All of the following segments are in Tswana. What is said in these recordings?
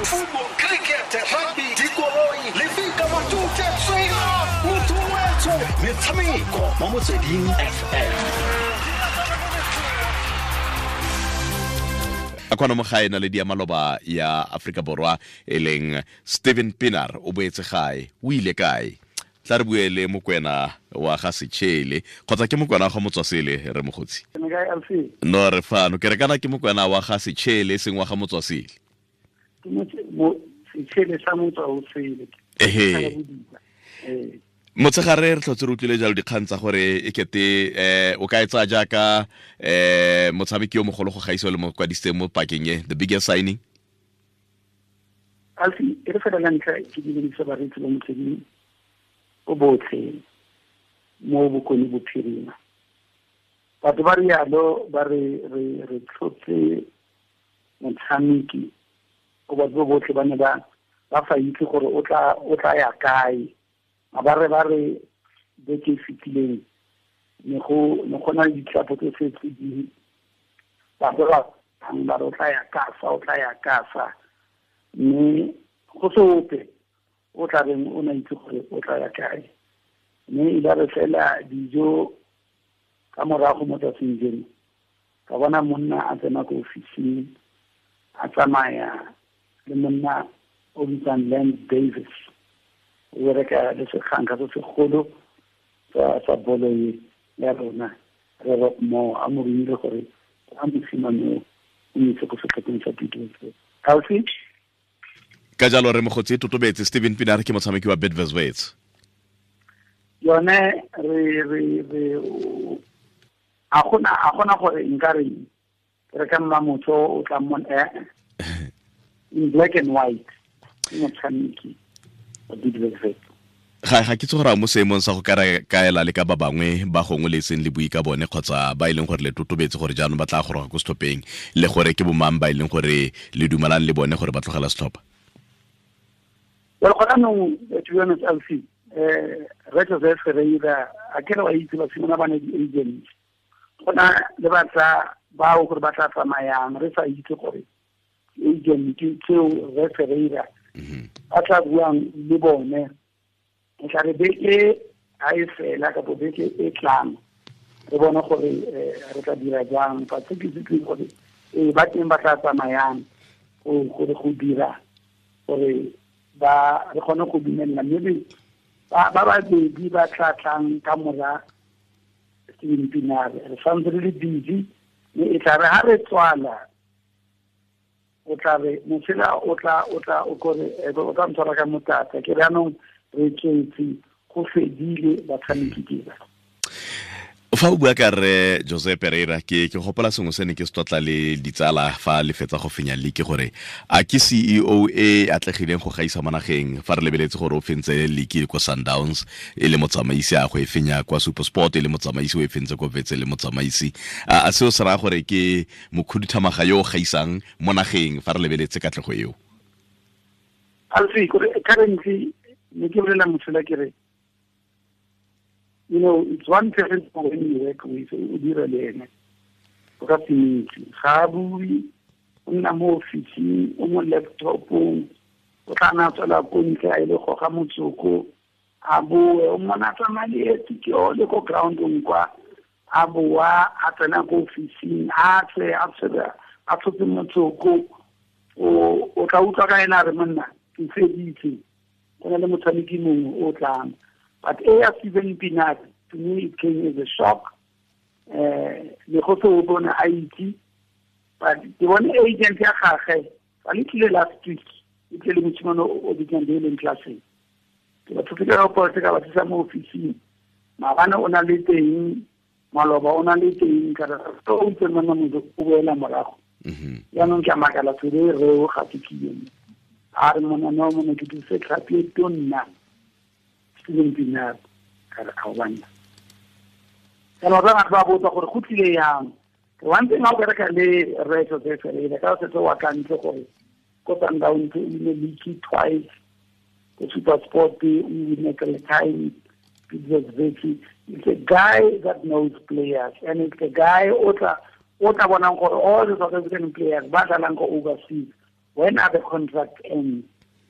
Football, cricket, rugby, dikoloi, lefika, matute, tswela, motho wetsho, metshameko mo Motsweding FM. A kwana mo gae na le dia maloba ya Afrika Borwa e leng Steven Pienaar o boetse gae, o ile kae? Tla re bue le Mokwena wa ga Sechele kgotsa ke Mokwena wa ga Motswasele re mogotsi. No re fano ke re kana ke Mokwena wa ga Sechele e seng wa ga Motswasele. Sechele sa Motswasele. Ehe. Motshegare re tlhotse re utlwile jalo dikgang tsa gore e kete o ka e tsaya jaaka motshameki yo mogolo go gaisa le mo kwadisitseng mo pakeng e, the biggest signing. Alfi, e re fela la ntlha ke dumedisa bareetsi ba Motsweding o botlhe mo Bokone Bophirima. Batho ba rialo ba re re tlhotse motshameki o batho botlhe ba ne ba sa itse gore o tla ya kae. Ba re beke e fetileng ne go na le ditlhapo tse setse di batho ba re o tla ya kasa, o tla ya kasa, mme go se ope o tla reng o na itse gore o tla ya kae. Mme e la re fela dijo ka morago mo tsatsing jeno ka bona monna a tsena ko ofising a tsamaya le monna o bitsang Lance Davis, o bereka le sekganka se segolo sa bolo e ya rona re Rock Moore, a mo romile gore a mosimane o mo itse ko setlhopheng sa Bidvest. Alfi? Ka jalo re mogotsi totobetse Steven Pienaar ke motshameki wa Bidvest Wits. Yone re a gona gore nka re re ka mma motho o tla mmona in black and white ke motshameki wa Bidvest Wits. Ga ke tse gore a mo seemong sa go kaela le ka ba bangwe ba gongwe le seng le bui ka bone kgotsa ba e leng gore le totobetse gore jaanong ba tla goroga ko setlhopheng le gore ke bomang ba e leng gore le dumelang le bone gore ba tlogela setlhopha. Well, gona nong, to be honest, Alfie, Re Joseph Ferreira, a ke re wa itse basimane ba ne di-agents. Gona le batla bao gore ba tla tsamayang, re sa itse gore agent tseo Re Ferreira ba tla buang le bone. E tla re beke ha e fela kapo beke e tlang re bone gore re tla dira jang. Fa se ke se gore ba teng ba tla tsamayang gore go dira gore ba re kgone go dumella, mme ba babedi ba tla tlang ka mora Steven Pienaar re santse re le busy, mme e tla re ha re tswala o tla re mosela o tla o kore o tla ntshwara ka motata ke re anong re tswetse go fedile batshameki ke ba. Fa o bua ka re Jose Pereira ke gopola sengwe se ne ke se tlotla le ditsala fa le fetsa go fenya league gore a ke CEO e atlegileng go gaisa mo nageng fa re lebeletse gore o fentse league ko Sundowns e le motsamaisi a go e fenya kwa SuperSport e le motsamaisi o e fentse ko Wits e le motsamaisi, a seo se raya gore ke mokhuduthamaga yo o gaisang mo nageng fa re lebeletse katlego eo? Alfi, currently ne ke bolela mosola ke re, you know, it's one person when you work with, o dira le ene o ka se itse, ga a bue, o nna mo ofising, o mo laptopong, o tla nna tswela ko ntle a ile goga motsoko a boe, o mmona tsamaya leeto ke ole ko groundong kwa, a boa a tsena ko ofising a tswe a tshotse motsoko, o tla utlwa ka ena a re monna ke feditse, go na le motshameki mongwe o tlang. But A Steven Pienaar, to me, it came as a shock. Le go se o bone a itse, but ke bone agent ya gagwe fa le tlile last week, e tlile le mosimane o bitswang Dalen Classen. Ke batho ke ka go ka ba tsisa mo ofising. Maabane o na le teng, maloba o na le teng, ka re o itse monna motho o boela morago. Jaanong ke a makala tsebe re o ga ke tlile. A re monna no monna ke thuse tlhapi e tonna. Steven Pienaar ka re a banna. Kana ba ba botsa gore go tlile yang. One thing a o bereka le Re Jose Ferreira ka setse wa ka ntle gore ko Sundowns o win league twice, ko SuperSport o win three times, Bidvest Wits. It's a guy that knows players, and it's a guy o tla bonang gore all the South African players ba dlalang ko overseas When are the contract end?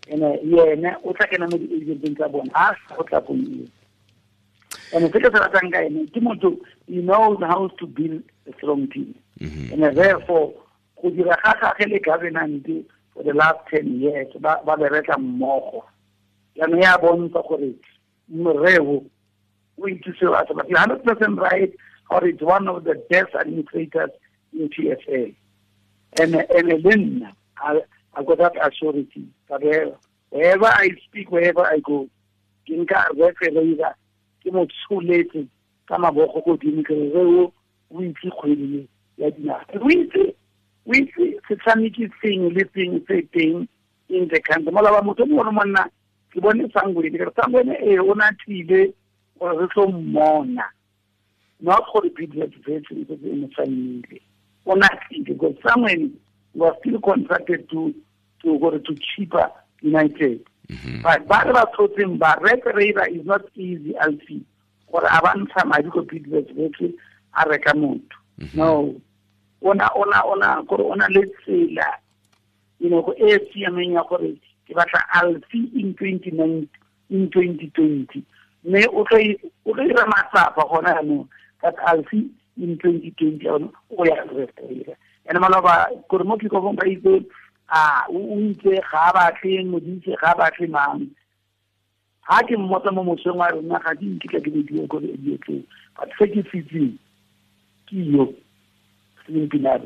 And yena o tla kena mo di-agenteng tsa bona, ha go tla kong eo. And se ke se ratang ka ene ke motho, he knows how to build a strong team. And therefore go dira ga gage le governance for the last 10 years ba bereka mmogo. Jaanong ya bontsha gore moreo o itse seo a se batlang. 100% right, or it's one of the best administrators in PSL. And le nna I got that assurance. Wherever I speak, wherever I go, ke nka Rre Ferreira ke mo tsholetse ka mabogo godimo ke re o itse kgwedi ya dinaga. O itse setshameki sengwe le sengwe se teng in the country. Molaba motho mongwe le monna ke bone Sangweni, ke re Sangweni ee o na tlile gore re tlo mmona. Not gore Bidvest Wits e setse e mo saenile. O na tlile because Sangweni was still contracted to go to Chippa United. But ba re ba tshotseng ba Rre Ferreira is not easy, Alfie. Gore a ba ntsha madi ko Bidvest Wits a reka motho. No. Ona gore ona le tsela, you know, go e siameng ya gore ke batla Alfie in 2019, in 2020. Mme o tlo dira matsapa gona jaanong, but Alfie in 2020 o ya Rre Ferreira. And maloba gore mo kikofong ba itse a o itse ga batle modise ga batle mang. Ha ke mmotsa mo mosong wa rona ga di nkitla ke di gore e dietse. But se ke sitseng ke yo Steven Pienaar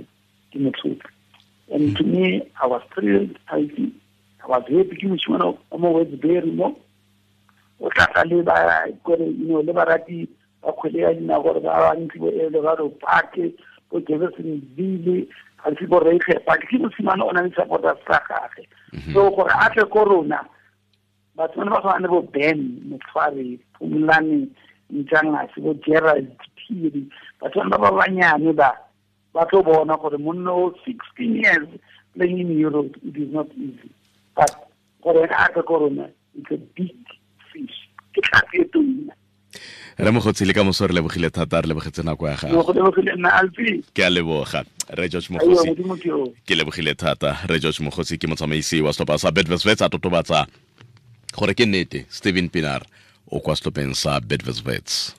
ke motho. And to me, I was thrilled. I was happy ke moshimane o mo Westbury mo. O tla tla le ba gore, you know, le barati ba kgwele ya dinao gore ba bantsi bo Eldorado Park, bo Jeffersonville, ga se bo Reiger Park. Ke mosimane o na le supporters tsa gagwe. So gore a tle ko rona, batho ba ba tshwana le bo Ben Motshwari, Phumlane Ntshangase, bo Gerald Phiri, batho ba ba banyane ba tlo bona gore monna o 16 years playing in Europe, it is not easy. But gore a tle ko rona, it's a big fish. Ke tlhapi e tona. Re Mogotsi le ka moso re lebogile thata, re lebogetse nako ya gago. Ke a leboga Rre George Mogotsi. Ke lebogile thata Rre George Mogotsi, ke motsamaisi wa setlhopha sa Bidvest Wits, a totobatsa gore ke nnete Steven Pienaar o kwa setlhopheng sa Bidvest Wits.